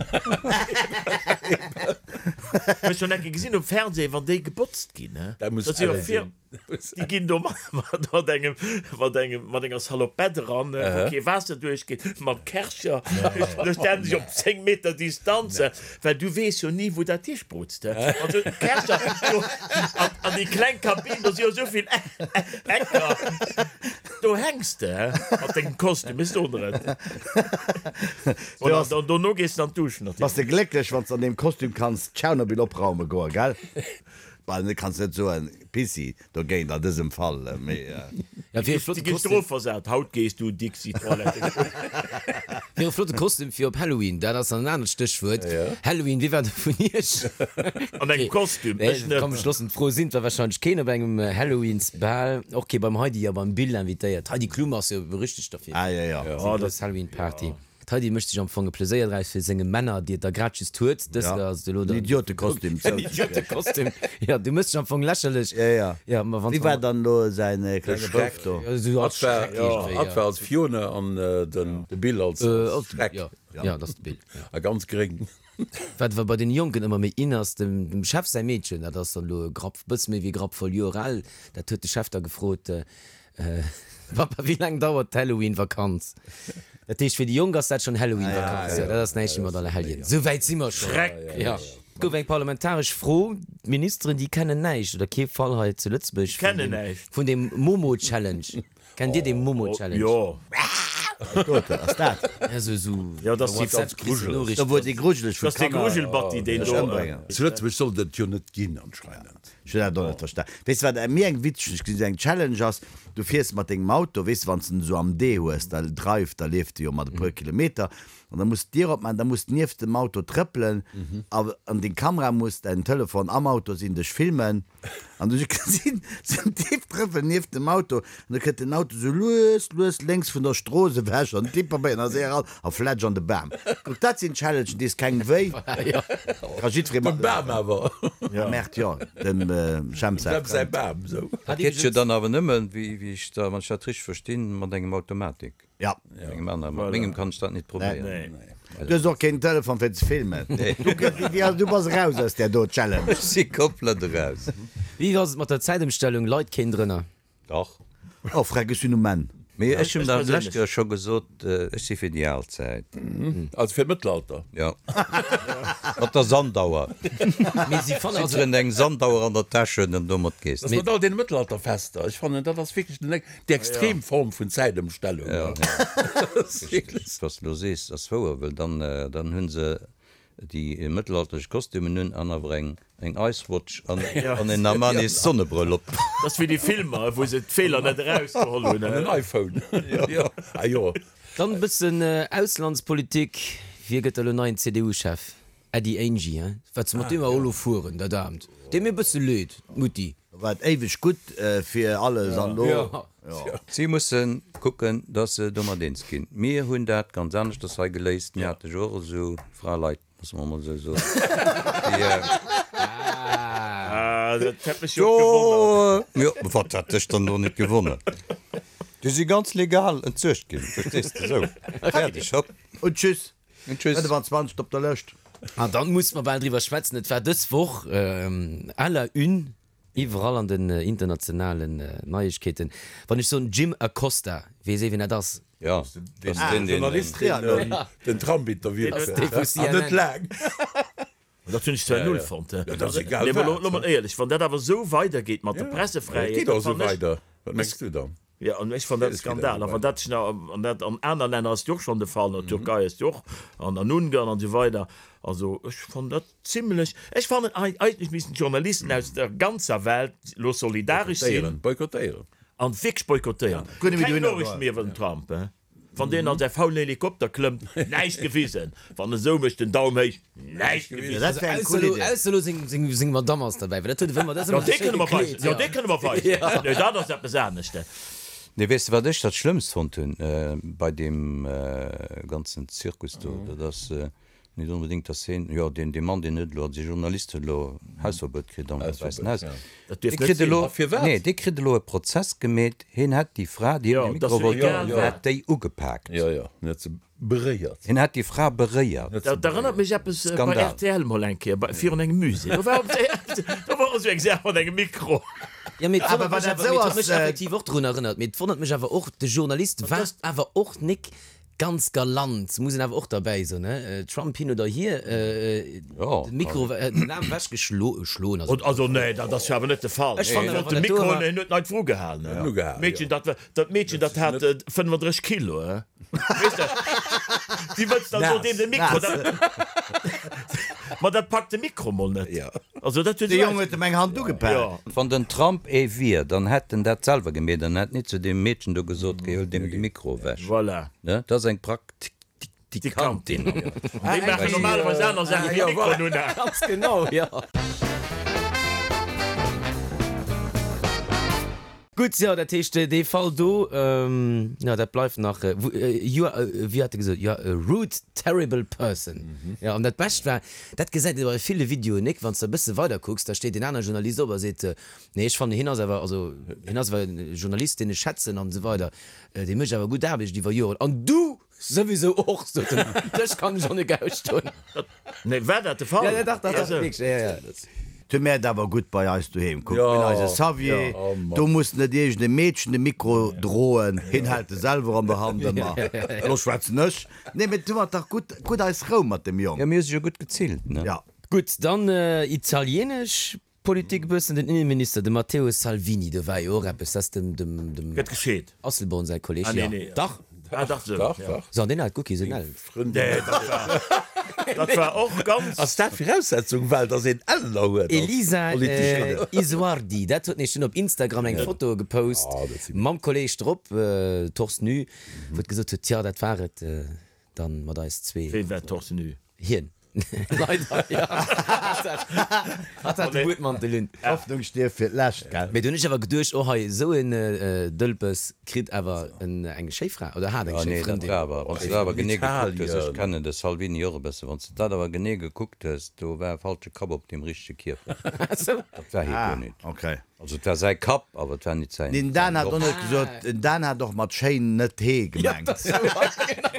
Ech hunn eng Kéier gesinn um Fernseh, wann déi gebotzt ginn, he? Dat muss Dat si jo elle vir. sinn. Déi ginn do mat engem, mat engem, mat enger Salopette eran, wou kee Waasser duerchgeet, mam Kärcher. Do stellen se sech op 10 Meter Distanz, well du weess jo ni, wou dat hisprutzt. Also d'Kärcher do an, an déi kleng Kabinn, do si jo esou vill Ecker. Do hänks de mat dengem Kostüm, ech soen der et. Voilà, an dono gees de an d'Dusch natierlech. Bass de glécklech, wann s de an deem Kostüm kanns Tschernobyl opraume goen, gell? Bal net, kanns net soen Pissi dogéint an dësem Fall, mee. Ja, fir e flotte Déi gi Kostüm. strofversat, haut gees du Dixi Toilette kucken. Fir e flotte Kostüm fir op Halloween, dat ass dann en anert Stéchwuert. Halloween, wie war do vun iech? An engem Kostüm, ech net. Komm, ech loossen d'Fro sinn, et war wahrscheinlech keen op engem Halloweensbal, och kee beim Heidi a beim Bill invitéiert. D'Heidi Klum ass jo berüchtegt derfir. Ah, jo, jo. Seng grouss Halloween-Party. D'Heidi mécht sech am Fong e Pleséier draus fir senge Männer, déi et da grad just huet. Dës Ja, ass et elo en dann. Idiotekostüm. En Idiotekostüm. Ja, du méchs dech am Fong lächerlech. Ja, ja. Ja, ma wann Wie war dann elo säin klenge Bouf do? Ja, esou als Hatt war, Schreck iergendwéi, hatt ja. war als Fiona an den de Bill als Als Schreck. Ja, ja, dat ass de Bill, ja. A ganz gréng. Wat awer bei den Jonken ëmmer méi in ass, dem dem Chef säi Meedchen, dat ass dann elo e Grapp, bësse méi wéi e Grapp voll Joer al, dat huet de Chef da gefrot, Papa, wéi laang dauert d'Halloween-Vakanz? Dat heescht, fir déi Jonk ass dat schonn Halloween-Vakanz. Jo, dat ass näischt méi mat Allerhelljen. Esou wäit si mer schonn. Jo. Et gouf eng parlamentaresch Fro. D'Ministeren, déi kennen näischt oder kee Fall hei zu Lëtzebuerg vun deem, vun deem Momo-Challenge. Kennt Dir dee Momo-Challenge? Jo. Wat ass dat? Ja, sou, sou Ja, dat ass déi WhatsApp kriss de Noriichten. Do wou déi grujeleg vun Kanner. Dat ass dee Grujelbatti, deen sech do. ëmbréngen. Zu Lëtzebuerg sollt et jo net ginn anscheinend. Ech hunn dat och net verstan. Weess de wat mir eng witzeg, ech gesinn, eng Challenge ass, du fiers mat dengem Auto, weess de, wann s de en esou am D hues, da Drive, da leeft de jo mat e puer Kilometer, an da muss d'Dier opmaachen, da muss nieft dem Auto trëppelen a an deng Kamera muss, däin Telefon am Auto sinn, dech filmen. An du gesinn sou en Typ trëppelen nieft dem Auto an da kënnt den Auto sou lues, lues lénks vun der Strooss ewech an den Typ probéiert nach séier eran a flätsch an de Bam. Kuck, dat sinn Challengen, déi s kengem wéi. Ka jiddweree Dem Bam awer. Ah merde, jo, dem Jemp säi Dem säi Frënd. Bam, sou. Dat geet jo dann awer nëmmen, wéi ech da, wann ech dat richteg verstinn, mat engem Automatik. Ja. Engem aneren. Mat mengem kann ech dat nit probéieren. Du hues och keen Telefon fir ze filmen. Du bass eraus aus där do Challenge. Ech si komplett eraus. Wéi ass et mat der Zäitëmstellung? Leit keen drënner? Dach. Oh freck, ech sinn um Enn. Mee ech hunn der d'lescht Joer scho gesot, ech si fir déi al Zäit. Also fir d'Mëttelalter? Jo. Mat der Sandauer. Mee si fannen also. Jidderen eng Sandauer an der Täsch huet an domat gees de. Mat all deene Mëttelalterfester, ech fannen dat ass wierklech den Déi extrem Form vun Zäitëmstellung. Ja, wat s de elo sees, ass wouer, well dann, dann hu se déi mëttelalterlech Kostümen un an awer eng, eng Ice-Watch an, an en Armani-Sonnebrëll op. Dat ass wéi déi Filmer, wou se d'Feeler net erausgeholl hunn. An en iPhone. Jo, ah jo. Dann e bëssen Auslandspolitik, Wie gëtt elo neien CDU-Chef? Äddi Angie, hein? Wat se mat deem awer elo fueren, dat Aarmt. Deet mir e bësse leed, d'Mutti. War et éiweg gutt fir alles an lo. Si musse kucken, datt se domat eens ginn. Mir hunn dat ganz aneschters hei geléist. Mir hate jo och esou Fraleit, loosse mer emol esou soen, déi. Ah, dat hätt mech jo och gewonnert. Jo, wat hätt dech dann do net gewonnert? Déi si ganz legal entsuergt ginn, verstees de, esou, fäerdeg, hopp. Und tschüss. Und tschüss. 25 op der Lëscht. An dann musse mer bal driwwer schwätzen, et war dës Woch à la une iwwerall an den internationalen Neiegkeeten, wann ech soen Jim Acosta, weess ee wien dat ass? Jo, dat ass deen, deen. Journalist, deen den Trump interviewt huet, an net laang. Dat hunn ech zwar null fonnt. Ja, dat ass egal Nee, ma wat. lo mol éierlech, wann dat awer esou weidergeet mat der Ja, Pressefräiheet, et geet och dat esou fannen ech. weider. Wat mengs du dann? Jo, an ech fannen dat e Skandal. A wann dat sech nach, an dat an aner Länner ass et jo och schonn de Fall, an der Türkei ass et jo och, an an Ungarn an esou weider. Also ech fannen dat zimlech, ech fannen eigentlech missten d'Journalisten aus der ganzer Welt lo solidaresch sinn. Boykottéieren, boykottéieren. An wierklech boykottéieren. Keng Noriichten méi iwwer den Trump, hein. Wann deen an säi faulen Helikopter klëmmt, näischt gewisen. Wann en sou mécht, den Daum héich, näischt gewisen. Dat wär eng cool Idee. Ausser elo seng Madamm ass derbäi, well dat huet e wëmmer, dat ass Jo, ëmmer dee sou schéi kënne mer weisen. gekleet. Jo, dee kënne mer weisen. Nee, dat ass eppes anescht. Nee, weess de wat ech dat Schlëmmst fonnt hunn bei deem ganzen Zirkus do? Dat ass Net onbedéngt, dass heen, jo, deen, dee Mann, deen huet elo, also dee Journalist huet elo Hausverbuet kritt am Wäissen Haus. Dat Dee dierf net kritt sinn. elo, A firwat? nee, dee kritt elo e Prozess gemeet, heen hätt déi Fra, déi Jo, him de dat Mikro ass wollt jo egal ginn, wat. hätt déi ugepaakt. Jo, jo, en huet se beréiert. Hien hätt déi Fra beréiert. Dat erënnert mech eppes bei Skandal. rtl mol eng Kéier, bei, virun engem Musée. Do war op, do war och esou eng Saach mat engem Mikro. Jo, mee et Awer wonnert wann mech dat awer, esou mee et huet ass, mech effektiv och drun erënnert. Mee et wonnert mech awer och, de Journalist war awer och nik Ganz galant, muss een awer och derbäi soen, ne? Trump hin oder hier, den Mikro, den Aarm ewech geschloen, also. Also nee, dat ass jo awer net de Fall. Ech fannen awer, De wann dat do Mikro, war. hien huet neit vru gehalen, ne? Ugehalen, Meedchen, jo. dat, dat Meedchen, dat hat 35 Kilo, he? Weess de, déi wëlls dann do deem de Mikro, dat, ma dat packt de Mikro mol net. Jo. Also dat huet De Jong huet em eng Hand ugepaakt. Jo. Wann den Trump ee wier, dann hätt en dat selwer gemeet an hätt nit zu deem Meedchen do gesot, Geh, huel deem de Mikro ewech. Voilà. Ne, dat ass eng Praktikantin. Déi maachen normalerweis aner Saachen wéi Mikroen unhalen. Ganz genau, jo. Gutt, jo, dat heescht, dee Fall do, jo, dat bleift nach, you are, wéi hat e gesot, you are a rude, terrible person. Jo, an dat Bescht war, dat gesäit ee bei ville Videoen, Nick, wann s de e bësse weider kucks, da steet een anere Journalist op a seet, nee, ech fannen, hien ass awer, also hien ass awer e Journalist, deen ech schätzen an esou weider, dee mécht awer gutt Aarbecht iwwer Joren. An du souwisou och, sot en, dech kann ech och net ausstoen. Nee, war dat de Fall? Ja, ja, dach, dach, dach, wierklech, ja, ja. Tu mär et awer gutt bei eis doheem. Kuck, mir hunn eise Xavier, Oh Mann. do muss net iergend e Meedchen de Mikro droen, hien hält e selwer an der Hand ëmmer. Elo schwätzen ech. Nee, mee tu mer et dach gutt, gutt eis Rou mat dem Jong. Jo, mir hu sech jo gutt gezillt, ne? Ja. Gutt, dann italienesch Politik e bëssen. Den Innenminister, de Matteo Salvini, do war jo och eppes, dat ass dem, dem, dem Gëtt gescheet. Asselborn säi Kolleg, Ah, nee, jo, nee. dach. Ah dach, sou, Dach, ja. dach. So, an deen hat guer kee sou Ellen. Frëndin. Nee, dat war, dat war och ganz. Ass dat Viraussetzung, well dass een Ellener huet als Elisa Politikerin? Isuardi, dat huet nämlech dunn op Instagram eng Foto gepost Ah, dat si. mam Kolleg drop, torse nu, wou et gesot huet, tja, dat war et dann mat eis zwee. Ween war torse nu? Hien. Leider, jo. Hatt hat de Buedmantel un. D'Hoffnung stierft fir d'lescht, gell? Mee du hunn ech awer geduecht, oh hei, esou en Dëlpes kritt awer eng schéi Fra oder hat eng Ah schéi nee, dat Frëndin. war awer, wann s de dat awer genee gekuckt hues, ech Italien. kennen de Salvini och e bësse, wann s de dat awer genee gekuckt hues, do war e falsche Kapp op deem richtege Kierper. Dat war hie guer Ah, nit. okay. Also et war säi Kapp, awer et war nit säin Den Dan hat och Dorf. net gesot, den Dan hat och mat schéin net hee gemengt.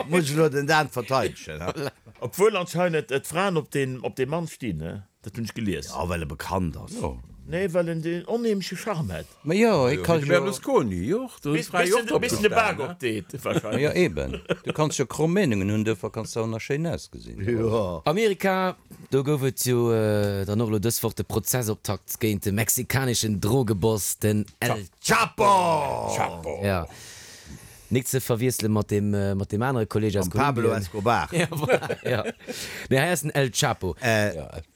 Muss ech elo den Dan verteidegen, he? Obwuel anscheinend d'Fraen op deen op dee Mann stinn, he? Dat hunn ech gelies. Jo, well e bekannt ass. Jo. Nee, well en deen onheemleche Charme hätt. Ma jo, hie ka Wéi de jo. Berlusconi, jo, do hunn d'Frae jo och drop Bis en de Bak gestanen, he? opdeet, Ma jo, wahrscheinlech. eben. Du kanns jo kromm Meenungen hunn, duerfir kanns de och nach schéin ausgesinn. Jo. Amerika, Do gouf et jo dann och elo dës Woch de Prozessoptakt géint de mexikaneschen Drogeboss, den El Chapo! Chapo! Ja. Nik ze verwiessele mat deem, mat deem anere Kolleeg aus Mam Pablo Kolumbien. Escobar. Ja, voilà, ja. Nee, hei ass den El Chapo.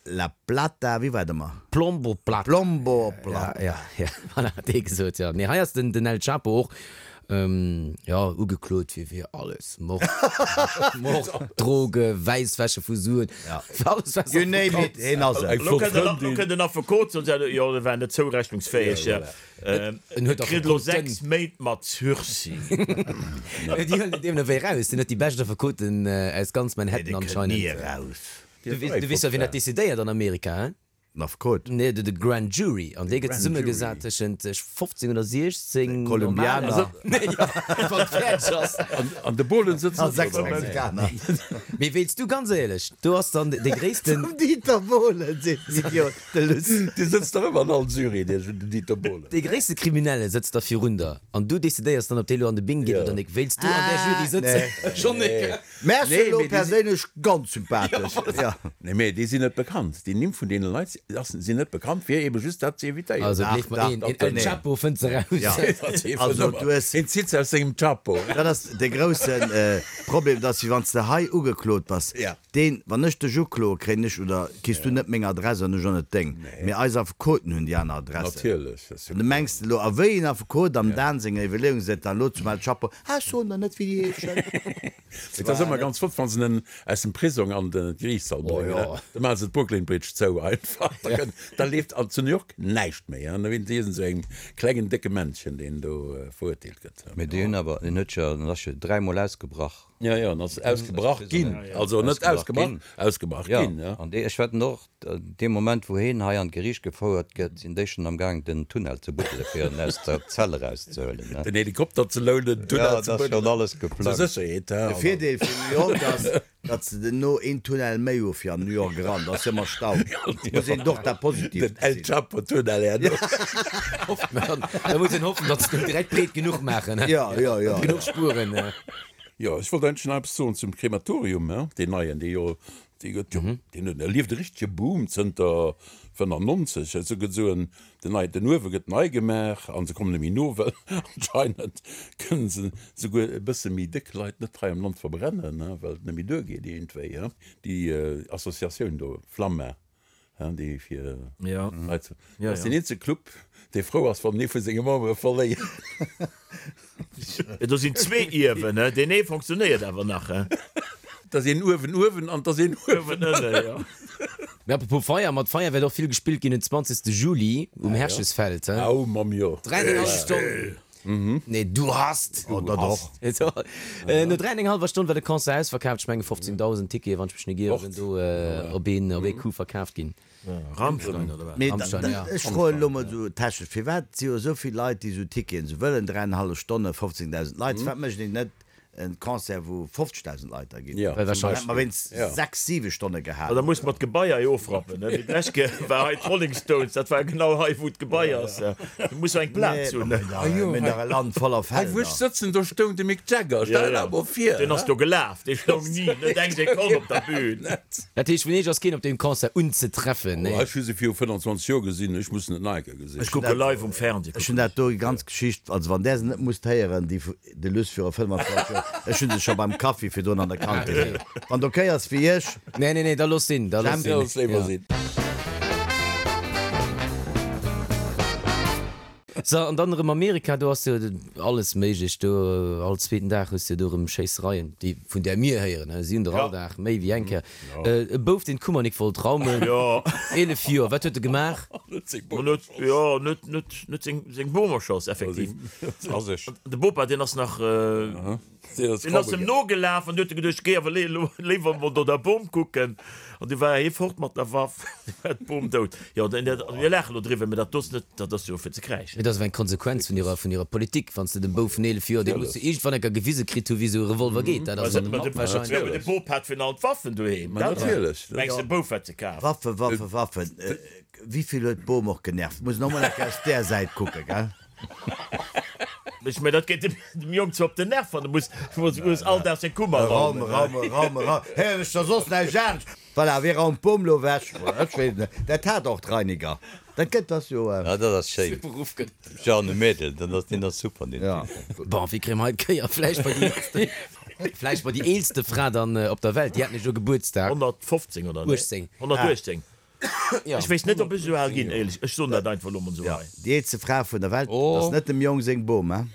La Plata, wéi war et ëmmer? Plombo Plata. Plombo Plata. Ja, ja, ja, voilà, hat dee gesot, ja. Nee, hei ass den, den El Chapo och. Jo, ugeklot fir fir alles, Mord, Mord, Droge, Wäisswäsche vu Suen, fir alles wat You name it, heen ass et. Elo kënnt den Affekot soen, jo, e war net zourechnungsfäeg, En huet kritt elo Affekoten. 6 Méint mat Sursis. Déi huelen en deemno wéi eraus, deen huet déi bescht Affekoten aus ganz Nee, Manhattan dee kënnt ni anscheinend. eraus. Du weess jo, wien dat decidéiert an Amerika, hein? Den Affekot? Nee, de Grand Jury. An dee gëtt zesummegesat tëschent 15 oder 16 Kolumbianer. normalen. Jo, wann et fäerdeg ass. An de Bohlen sëtzt A och 6 do dobäi. Mexikaner. Mee wéilst du, ganz éierlech, do ass dann dee gréissten. Zum Dieter Bohlen, seet den Idiot, de Luss. Dee sëtzt dach ëmmer an all Jury, dee Dieter Bohlen. Dee gréisste Kriminelle sëtzt da virun der an du decidéiers dann, ob dee lo an de Bing geet Jo. oder nik. Wéilst du an där Jury sëtzen? Schonn nik. Mär ass Nee, elo mee déi si. perséinlech ganz sympathesch. Jo. Nee, mee déi sinn net bekannt. Déi Nimm vun deene Leit sinn net bekannt, fir ebe just dat ze evitéieren. Also Dach, gleef mer dach, een, dach, een El nee. Chapo fënnt se raus. Ja. Also du hues. Hien zitt se aus sengem Chapo. Dat ass de grousse Problem, dass wéi wann s de hei ugeklot bass, Ja. deen, wann ech dech ukloe, kréien ech oder kriss du net meng Adress an ech och net deng. Mee eis Affekoten hunn déi aner Adressen. Natierlech. Dat ass jo An du mengs elo, a wéi een Affekot am Dan senger Iwwerleeung seet dann elo zum El Chapo, Ah, ech soen der net wéi déi heeschen. Et ass ëmmer ganz flott, wann se en aus dem Prisong an de Geriichtssall bréngen. Da maache se d'Brooklyn Bridge zou einfach. Da kënnt, da leeft an zu New York näischt méi. An da wéint si esou engem klengen, décke Männchen, deen do verurteelt gëtt. Mee déi hunn awer, en huet jo, en ass jo dräimol ausgebrach. Jo, jo, en ass ausgebrach ginn. Also net ausgebrach, ausgebrach ginn, jo. An dee, ech wetten och, Dee Moment wou heen hei an d'Geriicht gefouert gëtt, sinn déi schonn am Gaang den Tunnel ze buddele fir en aus der Zell erauszehuelen. Den Helikopter ze lounen, den Tunnel Ja, ze dat ass schonn buddelen. alles Zur geplangt. Sécherheet, he. De Virdeel vun New York ass, datt se duerno een Tunnel méi hu fir an New York eran. Da ass ëmmer Stau. Muss een och dat Positiivt Den El gesinn. Chapo Tunnel herno. Hofft mer. Da muss een hoffen, datt se den direkt breet genuch maachen, he. Ja, ja, ja. Genuch Spueren. Jo, ech wollt eigentlech nach eppes soen zum Krematorium, he, deen neien, dee jo Dee gëtt jo, deen huet, erlieft e richtege Boom zënter 95. Esou gëtt esou en, den nei, den Uewe gëtt nei gemaach an se kommen net méi no, well anscheinend kënnen se souguer e bësse méi déck Leit net hei am Land verbrennen, well et net méi duergeet iergendwéi. Déi Associatioun do, Flamma, déi fir Leit, dat ass deen eenzege Club, dee frou ass, wann en ee vu senge Membere verléiert. Do sinn zwee Iewen, deen ee fonctionnéiert awer nach. Et ass een uewen uewen an et ass een uewen ënnen, jo. Mee apropos Feier, mat Feier wäert och vill gespillt ginn den 20. Juli um Herchesfeld. Au Mamm, jo. Dräi an eng hallef Stonn. Nee, du hast! Oh, dat och. No dräi an eng hallwer Stonn war de Concert ausverkaaft. Ech menge 15.000 Tickete, wann ech mech net ieren, sinn do op een op ee Coup verkaaft ginn. Rammstein, oder wat? Mee Rammstein, ja. ech froen elo mol esou technesch, firwat si jo esou vill Leit, déi esou Ticketen esou wëllen, dräi an eng hallef Stonne, 15.000 Leit, firwat mécht een net En Concert wou 50.000 Leit da ginn. Ja, Well wahrscheinlech. Hätt mer wéinst 6, 7 Stonne gehat. Da muss mer d'Gebaier jo ofrappen, ne? Wéi d'lescht Kéier war hei d'Rolling Stones, dat war genau hei wou d'Gebai ass. Du muss jo eng Plaz hunn, ne? Mir hunn dach e Land voller Hei wou ech Felder. sëtzen, do stoung de Mick Jagger, stell der mol vir. Deen ass do gelaf, dee stoung ni, net eng Sekonn op der Bühn. Dat heescht, vun Iech ass keen op deem Concert unzetreffen, nee? Ech hu se viru 25 Joer gesinn, ech muss en net nach eng Kéier gesinn. Ech kucke live um Fernseh. Ech hunn dat do, déi ganz Geschicht, also wann där se net musst héieren, déi De Luss viru 25 Joer. Ech hunn se scho beim Kaffi virdrun an der Kantin. Wann et ok ass fir iech. Nee, nee, nee, da looss sinn, da looss sinn. Looss léiwer sinn. So, an dann erëm Amerika, do ass jo alles méiglech do. All zweeten Dag hues de jo do erëm Schéissereien, déi vun där mir héieren, si hunn der all Dag méi wéi eng Kéier. E Bouf, deen d'Kummernik wollt raumen, 11 Joer, wat huet e gemaach? Jo, net, net, net seng, seng Bom erschoss, effektiv. De Bopa, deen ass nach. Deen ass em nogelaf an du huet e geduecht, géi awer léiwer emol no der Bom kucken. An du war hie fort mat der Waff, du war d'Bom dout. Jo, mir laache lo driwwer, mä dat do ass net, dat ass jo fir ze kräischen. Mee dat ass awer eng Konsequenz vun hirer, vun hirer Politik. Wann s de dem Bouf vun 11 Joer, dee muss jo iergendwann eng Kéier gewise kritt hu wéi esou e Revolver geet, dat ass an dem Kapp wahrscheinlech. Jo, mee de Bop hat virun allem d'Waffen doheem. Ma natierlech. Mengs de, de Bouf hätt se kaf? Waffen, Waffen, Waffen. Wéi vill huet d'Bom och genervt? Muss en och mol eng Kéier aus där Säit kucken, gell? Ech mengen, dat geet dem Jong zwar op den Nerv, wann e muss, muss all Dag seng Kummer raumen. Raume, raume, raume, raume. Héieren ech da soss näischt anescht? Voilà, wee raumt d'Bom lo ewech? Ech weess et net. Dat hat och d'Reiniger. Dat gëtt, ass jo. Ja, dat ass schéin. Jeanne Mädel, dat ass, deen ass super, deen Typ. Bon, wéi kréie mer hei d'Kéier? Vläicht bei déi eelste, vläicht bei déi eelste Fra dann op der Welt. Déi hat nämlech elo Gebuertsdag. 115 oder? 18. 118. Ech weess net, ob ech esou al ginn, éierlech. Ech soen dat einfach elo mol esou hei. Déi eelste Fra vun der Welt, dat ass net dem Jong seng Bom, hein?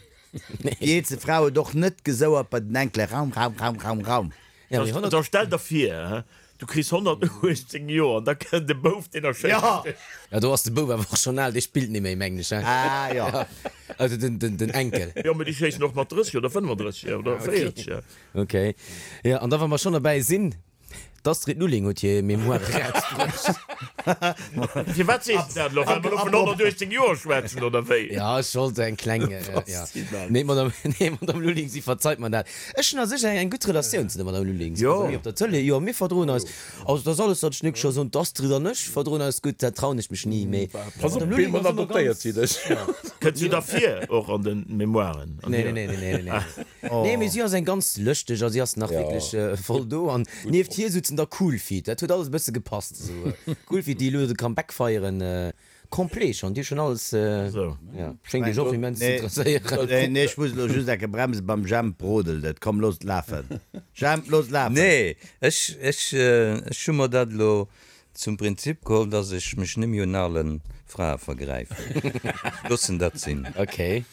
Déi eelste Fra huet och net gesouert bei den Enkele, Raum, Raum, Raum, Raum, Raum. Da stell der vir, du kriss 118 Joer an da kënnt e Bouf, deen erschéisst dech. Jo, do ass de Bouf awer och schonn al, dee spillt net méi, mengen ech, hein? Ah, jo. Also den, den Enkel. Jo, mee déi schéissen och mat 30 oder 35 oder 40. Ok. Jo, an da wa mer schonn derbäi sinn, D'Astrid Lulling huet hir Mémoire erausbruecht. Firwat sees de dat elo? Well mer elo vun 118 Joer schwätzen, oder wéi? Jo, ech wollt eng kleng, jo. Nee, Madame, nee, Madame Lulling, si verzeit mer dat. Ech hunn a sech eng gutt Relatioun zu der Madame Lulling. Si ass bei mir op der Tëlee. Jo, mir verdroen eis. Also, dat ass alles, wat ech net scho soen. D'Astrid an ech verdroen eis gutt, dat trauen ech mech ni. Mee Pass op, d'Madame Lulling ass ëmmer ganz. Si dech. Kënnt se da vir och an de Mémoiren? Nee, nee, nee, nee, nee. Nee, mee si ass eng ganz lëschteg a si ass nach wierklech voll do. An nieft hir souzen da Cool Feet. Dat huet alles e bësse gepasst esou. Cool Feet, déi elo de Comeback feieren, complet schonn. Déi hu schonn alles, jo, schéngt iech och immens ze interesséieren. Nee, nee, ech muss elo just enke bremsen, beim Jemp brodelt et. Komm, looss et lafen. Jemp, looss et lafen! Nee, ech, ech, ech hu mer dat elo Zum Prinzip geholl, dass ech mech nemmi un alen Frae vergräifen. Ech loossen dat sinn. Ok.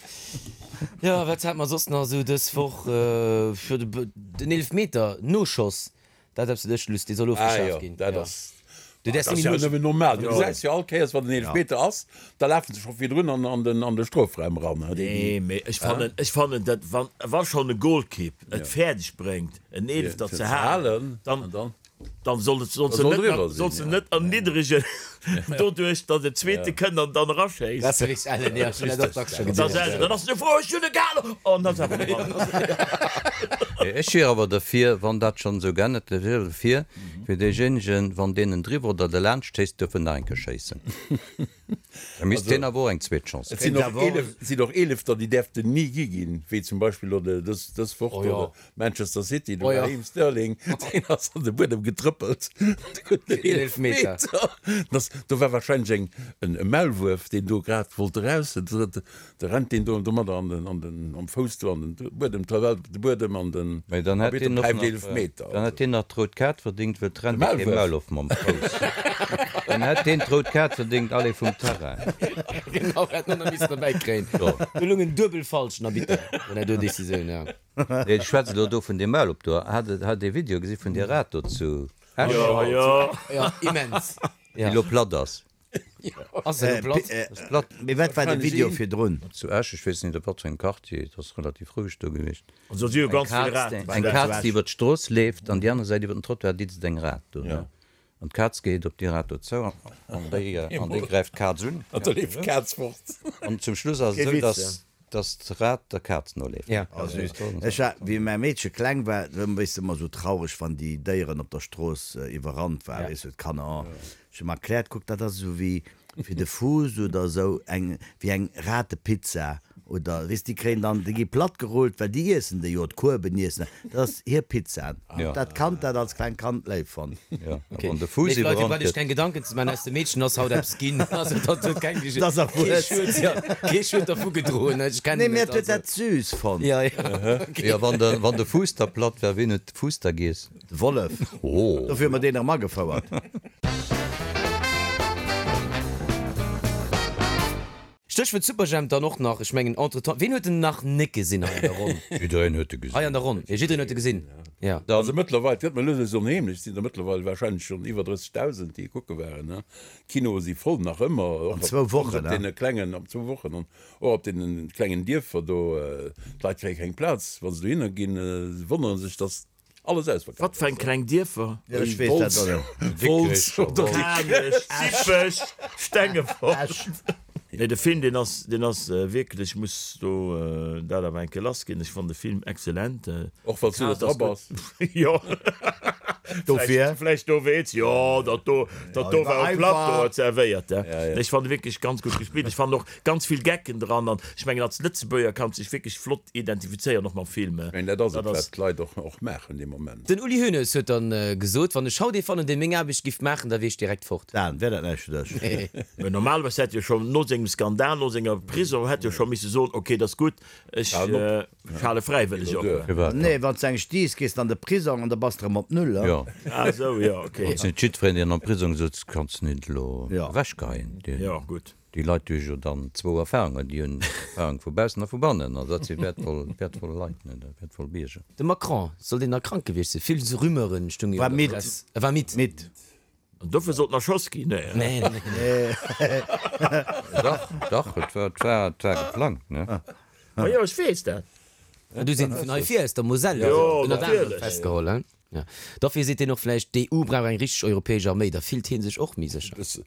Jo, wat hat mer soss nach esou dës Woch? Jo, den Eelefmeter, Noschoss, dat ass eppes, wat ech luss, dee soll ofgeschaaft ginn. Ah jo, dat ass, dat ass jo nëmmen normal. Du gesäis jo all Kéiers, wann en Eelefmeter ass, da lafen se scho virdrun an den, an de Strofraum eran. Nee, mee ech fannen, ech fannen dat, wann, wa schonn e Golkipp et fäerdeg bréngt, en Eelefter ze halen, dann, Dann soll et soll se net soll se net erniddregen doduerch datt en zweete kënnt an dann eraschéisst. Dat ass richteg ellen, jo, ech hunn dat och dacks scho gesinn. Dann ass se frou, ech hunn e gehalen! An ass awer dran. Ech wier awer derfir, wann dat schonn esou geännert gëtt, ech wier derfir, fir deejéinegen, wann deen en driwwer oder derlaanscht schéisst, duerf en nach eng Kéier schéissen. Da misst deen awer och eng zweet Chance Et sinn och 11, sinn och Eelefter, déi däerften ni gi ginn, wéi zum Beispill elo de, dës, dës Woch do de Manchester City, de Raheem Sterling, deen ass an de Buedem getrëppelt, de huet en Eelefmeter. Dat ass, do war wahrscheinlech eng, en e Maulwuerf, deen do grad wollt eraus, Da rennt deen do domadder an den, an den, am Fouss do an den Buedem, d'Tawell op de Buedem an den Mee dann hätt Arbitter deen och päift nach, Eelefmeter. dann hätt deen nach d'rout Kaart verdingt, well d'rennt jo kee Maulwurf mam Fouss. Dann hätt deen d'rout Kaart verdingt, allez vum Terrain. Genau, hätt en och nach missen derbäi kréien. Do lung en duebel falschen Arbitter bei där do Decisioun, jo. Nee, ech schwätze elo do vun deem Maulwurf do. Hat, hat ee Video gesi vun där Rat do zu Esch? Jo, jo. Jo, immens. Déi elo platt ass. Ass se elo platt? Ass platt. Mee wat war de Video virdrun? Zu Esch, ech weess net op wat fir engem Quartier, et ass relativ roueg do gewiescht. Also si hu ganz vill Raten. Eng Kaz déi iwwer d'Strooss leeft an déi aner Säit iwwer den Trottoir ditzt eng Rat do, ne? An d'Kaz geet op déi Rat do zou an déi an déi gräift d'Kaz un. An da leeft d'Kaz fort. An zum Schluss ass et esou, dass dass d'Rat der Kaz noleeft. Ja. Oh süß. Ech war, wéi mäi Meedche kleng war, do weess de, ëmmer esou traureg, wann déi Déieren op der Strooss iwwerrannt waren, weess du, d'Kanner, oh. Ech hu mer erkläert, kuck, dat ass esou wéi fir de Fuuss oder esou, eng, wéi eng Ratepizza. Oder, weess, déi kréien dann, déi gi platt gerullt, well déi iessen déi jo, d'Kueben iessen, dat ass hir Pizza. Dat Kand dat als klengt Kand léif fonnt. Jo, a wann de Fuuss Léif Leit, Dir iwwerrannt braucht iech gëtt. keng Gedanken ze maachen, aus dem Meedchen ass haut eppes ginn. Also dat huet keng, Dat ass kee erwuess. Schued, jo, kee Schued dervu gedroen, ech Nee, kennen mee et, et huet also. dat süß fonnt. Jo, jo, ok. Jo, wann de, wann de Fuuss da platt war, wien huet de Fuuss da giess? De Wollef. Oh. Dofir hu mer deen erëm agefouert. Stéchwuert Superjhemp dann och nach, ech mengen entretemps, ween huet en nach net gesinn hei an der Ronn? Jiddereen huet e gesinn. Hei an der Ronn, jo, jiddereen huet e gesinn, jo. Also mëttlerweil, et gëtt mer lues lues onheemlech, et sinn der mëttlerweil warscheinlech schonn iwwer 30.000, déi e kucke waren, ne. D'Kinoe si voll nach ëmmer, och An zwou Wochen, op ne? deene klengen, op zwou Wochen, an och op deene klengen Dierfer do, d'Leit kréie keng Plaz, wa se dohinner ginn, se wonnere sech, dass Alles ausverkaaft. Wat fir eng kleng Dierfer? Jo, ech weess dat och net. Wolz oder Kanech, Dippech, Stengefort. Nee, de Film, deen ass, deen ass wierklech, ech muss do dat awer eng Kéier lassginn, ech fannen de Film excellent. Och wann s du net dra bass. Jo, Dofir. vläicht dowéinst, jo, dat do, dat do war um Plateau zerwéiert. Nee, ech fannen wierklech ganz gutt gespillt. Ech fannen och ganz vill Gecken dran an ech mengen als Lëtzebuerger kanns dech wierklech flott identifizéieren och mam Film. Ech mengen dat ass et wat d'Leit och och maachen dee Moment. Den Uli Hoeneß huet dann gesot, wann ech haut ee fannen dee meng Aarbecht giff maachen, da wier ech direkt fort. Dan, wär dat näischt fir dech? Mä normalerweis hätt jo schonn no sengem Skandal, no senger Prison hätt jo scho misse soen, ok, dat ass gutt, ech hale fräiwëlleg op. Firwat? Nee, wann s de eng stiiss, gees de an de Prisong an da bass de erëm op Null. Jo. Ah esou, jo, ok. Et ass net jiddwereen deen am Prisong sëtzt, kanns net elo ewechgeheien. Jo, gutt. Déi Leit hu jo dann zwou Erfahrungen, déi hunn Erfahrung vu baussen a vu bannen, an dat si wäertvoll, wäertvoll Leit, ne, wäertvoll Bierger. De Macron, soll deen nach krank gewiescht sinn? Vill Rumeuren stunge jo War an der midd. Press. E war midd. Midd. An dofir sollt en erschoss ginn? Nee. Nee, nee, nee. Dach, dach, et war, et war, et war geplangt, ne. Ma jo, ech weess dat. Du sinn vun hei vir aus der Moselle, Jo, ënnert anerem natierlech. festgeholl, hein? Ja. Dofir seet hien och vläicht, d'EU brauch eng richteg europäesch Arméi, da fillt hie sech och méi sécher. Bësse,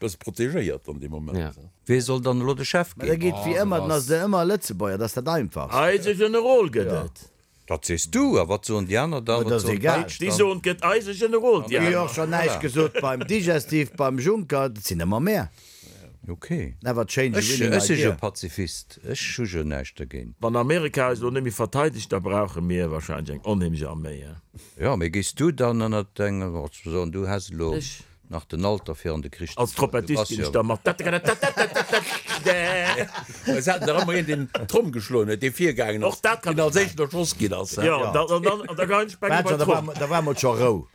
bësse protegéiert an deem Moment. Ja. Wee soll dann elo de Chef Mä da ginn? geet wéi ëmmer, dann ass et ëmmer e Lëtzebuerger, dat ass dat Einfachst. Eise Generol gëtt et. Dat sees du, a wat soen déi aner dann? Ma dat Wat ass soen egal. d'Däitsch Déi dann? soen, et gëtt eise Generol, déi Mir hu jo aner. och schonn näischt gesot beim Digestif, beim Juncker, dat sinn ëmmer mär. Ok. Never change a Ech, winning ech si jo idea. Pazifist, ech hu jo näischt dergéint. Wann Amerika eis elo net méi verteidegt, da brauche mir wahrscheinlech eng onheemlech Arméi, he? Jo, mee géifs du dann ënnert engem, also soen, du häss elo Ech? nach den Alter fir an de Krich ze Als fueren, du Trompettist bass ginn jo. ech da mat. Es haten der ëmmer een, deen d'Tromm geschloen huet, dee virgaangen ass, Och dat kann deen ech als éischten erschoss ginn ass. Jo, an dann, an da geien ech beng Wat, bei da d'Tromm. war, da war mol scho Rou.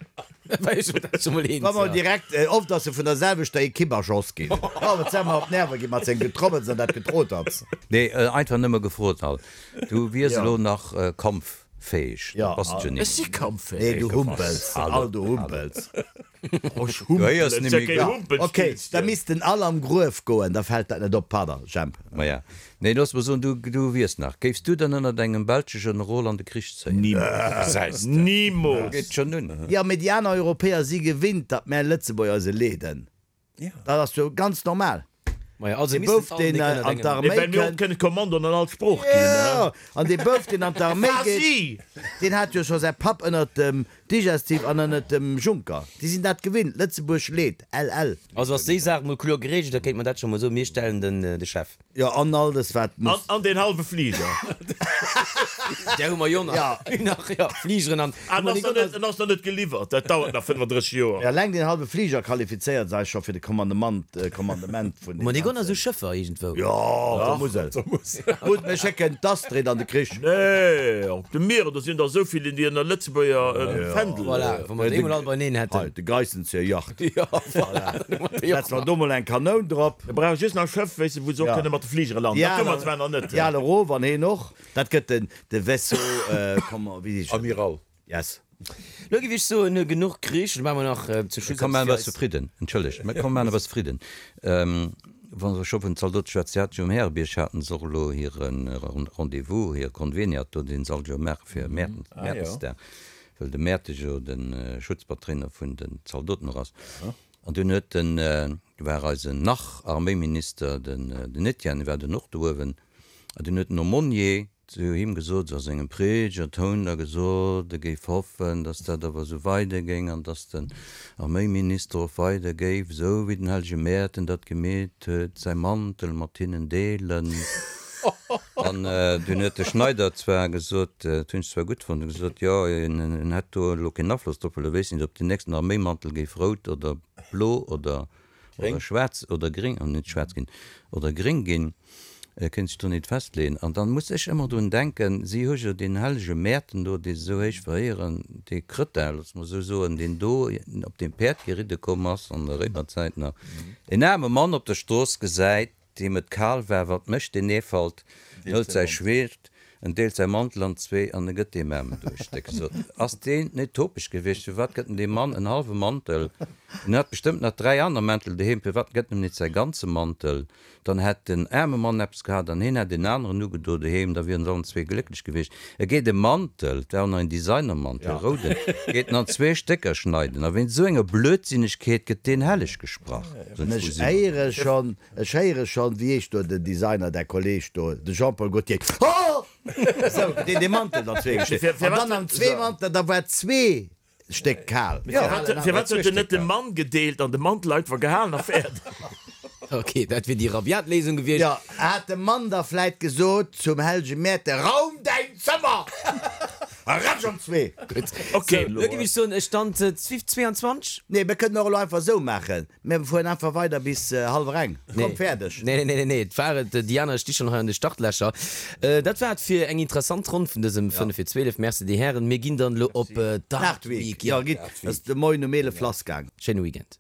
Wa mol direkt, oft ass e vun der selwechter Ekipp erschoss ginn. Oh, wat se mer op d'Nerve ginn mat sengem Getrommels an dat Getroters. Nee, einfach nëmme gefrot halt. Du wiers elo nach kampffäeg, dat bass de jo Ech si net. kampffäeg. Nee, du humpels, all du humpels. Du héiers Et net ass ja méi keen gutt. Humpelspillchen. Ok, da missten all am Gruef goen, da fält dat net op. Pardon, Jemp. Maja, nee, looss mer soen, du, du wiers nach. Géifs du dann ënnert engem belsche Generol an de Krich zéien? Nimools. Gesäis de, Nimools. geet schonn un. Jo, mee déi aner Europäer si gewinnt, datt mär Lëtzebuerger se leeden. Dat ass jo ganz normal. Maja, also Dee missten Bouf, all deen nik ënnert an engem. d'Arméi Nee, well mir och kënnt. kënne Kommandoen an all Sprooch ginn, ne? Jo, an dee Bouf, deen an d'Arméi geet, Quasi! deen hat jo scho säi Papp ënnert dem Digestif an ënnert dem Juncker. Déi sinn dat gewinnt. Lëtzebuerg leet. LL. Also ass déi Saach mol kloer geregelt, da kéint mer dat scho mol soen, mir stellen den de Chef. Jo, an all des wat An, muss. an deen hallwe Fliger. Där hu mer jo nach. Ja. Nach, jo, Fligeren an. Ah, en ass nach net, en ass nach net geliwwert. Dat dauert nach 35 Joer. Ja, eleng deen hallwe Fliger qualifizéiert sech scho fir de Kommandement, Kommandement vun Hu mer deem déi Gonner ganzen. esou Schëffer iergendwou? Jo, op der Musel. Gutt, mir schécken d'Astrid an de Krich. Nee, op de Mieren, do sinn der esou vill, déi ënner Lëtzebuerger Fändel. Voilà, wa mer déi mol all beineen Hei, hätten. de Geissenzieher Yacht. Jo, voilà. Setze mer do mol eng Kanoun drop. Mir brauche just nach e Schëff, wéisst de, wou se och Ja. kënne mat de Fligere landen. Déi Dat hu mer al, zwar nach net. déi al erof an heen och. Dat gëtt den, de Vaisseau, comment, wéi heescht dat? Amiral. Yes. Lo géif ech soen, genuch Krich. Lo maache mer nach zu Schluss Komm eppes maachen fir e bësse eis. Fridden. Entschëllegt, mä komm maachen e bësse Fridden. Wa se scho vun Zaldote schwätzen, si haten jo um Härebierg haten se och elo hire Rendez-vous, hir Conveniat do, deen se all Joer maache fir Mäertensdag, well de Mäerte jo de Schutzpatréiner vun den Zaldoten och ass. An dunn huet den, do war eisen Nach-Arméiminister, den den Etienne, war dunn och do uewen, an dunn huet den Aumônier zu him gesot, sou a sengem Predigertoun da gesot, e géif hoffen, datt dat awer esou weidergéing an datt den Arméiminister och weider géif, esou wéi den hellege Mäerten dat gemeet huet, säi Mantel mat hinnen deelen. An dunn huet de Schneider zwar gesot, dat hunn ech zwar gutt fonnt, huet gesot, jo, en hätt do elo keen Afloss drop, well e wéisst net, ob deen nächsten Arméimantel géif rout oder blo oder schwaarz oder gréng, oh net schwaarz ginn, oder gréng ginn. E kéint sech do nit festleeën. An dann muss ech ëmmer drun denken, si hu jo deen hellege Mäerten do, dee se esou héich veréieren, dee Krëttel, loosse mer esou soen, deen do op deem Päerd geridde komm ass an der Réimerzäit nach, en aarme Mann op der Strooss gesäit, deem et kal war, wat mécht deen Eefalt? En hëlt säi Schwert, en deelt säi Mantel an zwee an e gëtt deem Aarmen do e Stéck. Sot, ass deen net topeg gewiescht? Firwat gëtt en deem Mann en hallwe Mantel? En hat bestëmmt nach 3 aner Mäntel doheem, firwat gëtt en em net säi ganze Mantel? Dann hätt den aarme Mann eppes gehat an hien hätt een aneren ugedo doheem, da wieren se allen zwee glécklech gewiescht. E geet e Mantel, et war och nach een Designermantel, e rouden, geet en an zwee Stécker schneiden. A wéinst esou enger Blödsinnegkeet gëtt deen helleg gesprach. An ech héiere schonn, ech héiere schonn, wéi heescht do den Designer, däi Kolleg do, de Jean-Paul Gaultier, Ho! Esou gëtt deen dee Mantel an zwee geschnidden. An dann an zwee Manteler, da war zwee Stéck kal. Firwat huet en net de Mann gedeelt an de Mantel einfach gehalen a fäerdeg? Ok, dat wier déi rabiat Léisung gewiescht. Jo, hat de Mann da vläit gesot zum Hellege Mäerte, Raum däin Zëmmer! A ratsch an zwee! Gutt, ok, lo géif ech soen, Stand 22? Nee, mir kënnen och elo einfach esou maachen, Mir fueren einfach weider bis hallwer eng. Komm, fäerdeg! Nee, nee, nee, nee, et war et. Déi aner sti schonn hei an de Startlächer. Dat war et fir eng interessant Ronn vun dësem 5 fir 12. Merci, dir Hären. Mir ginn dann elo op d'Art Week. Jo, gitt. Ass de Moien um 11 lassgaang. Schéine Weekend.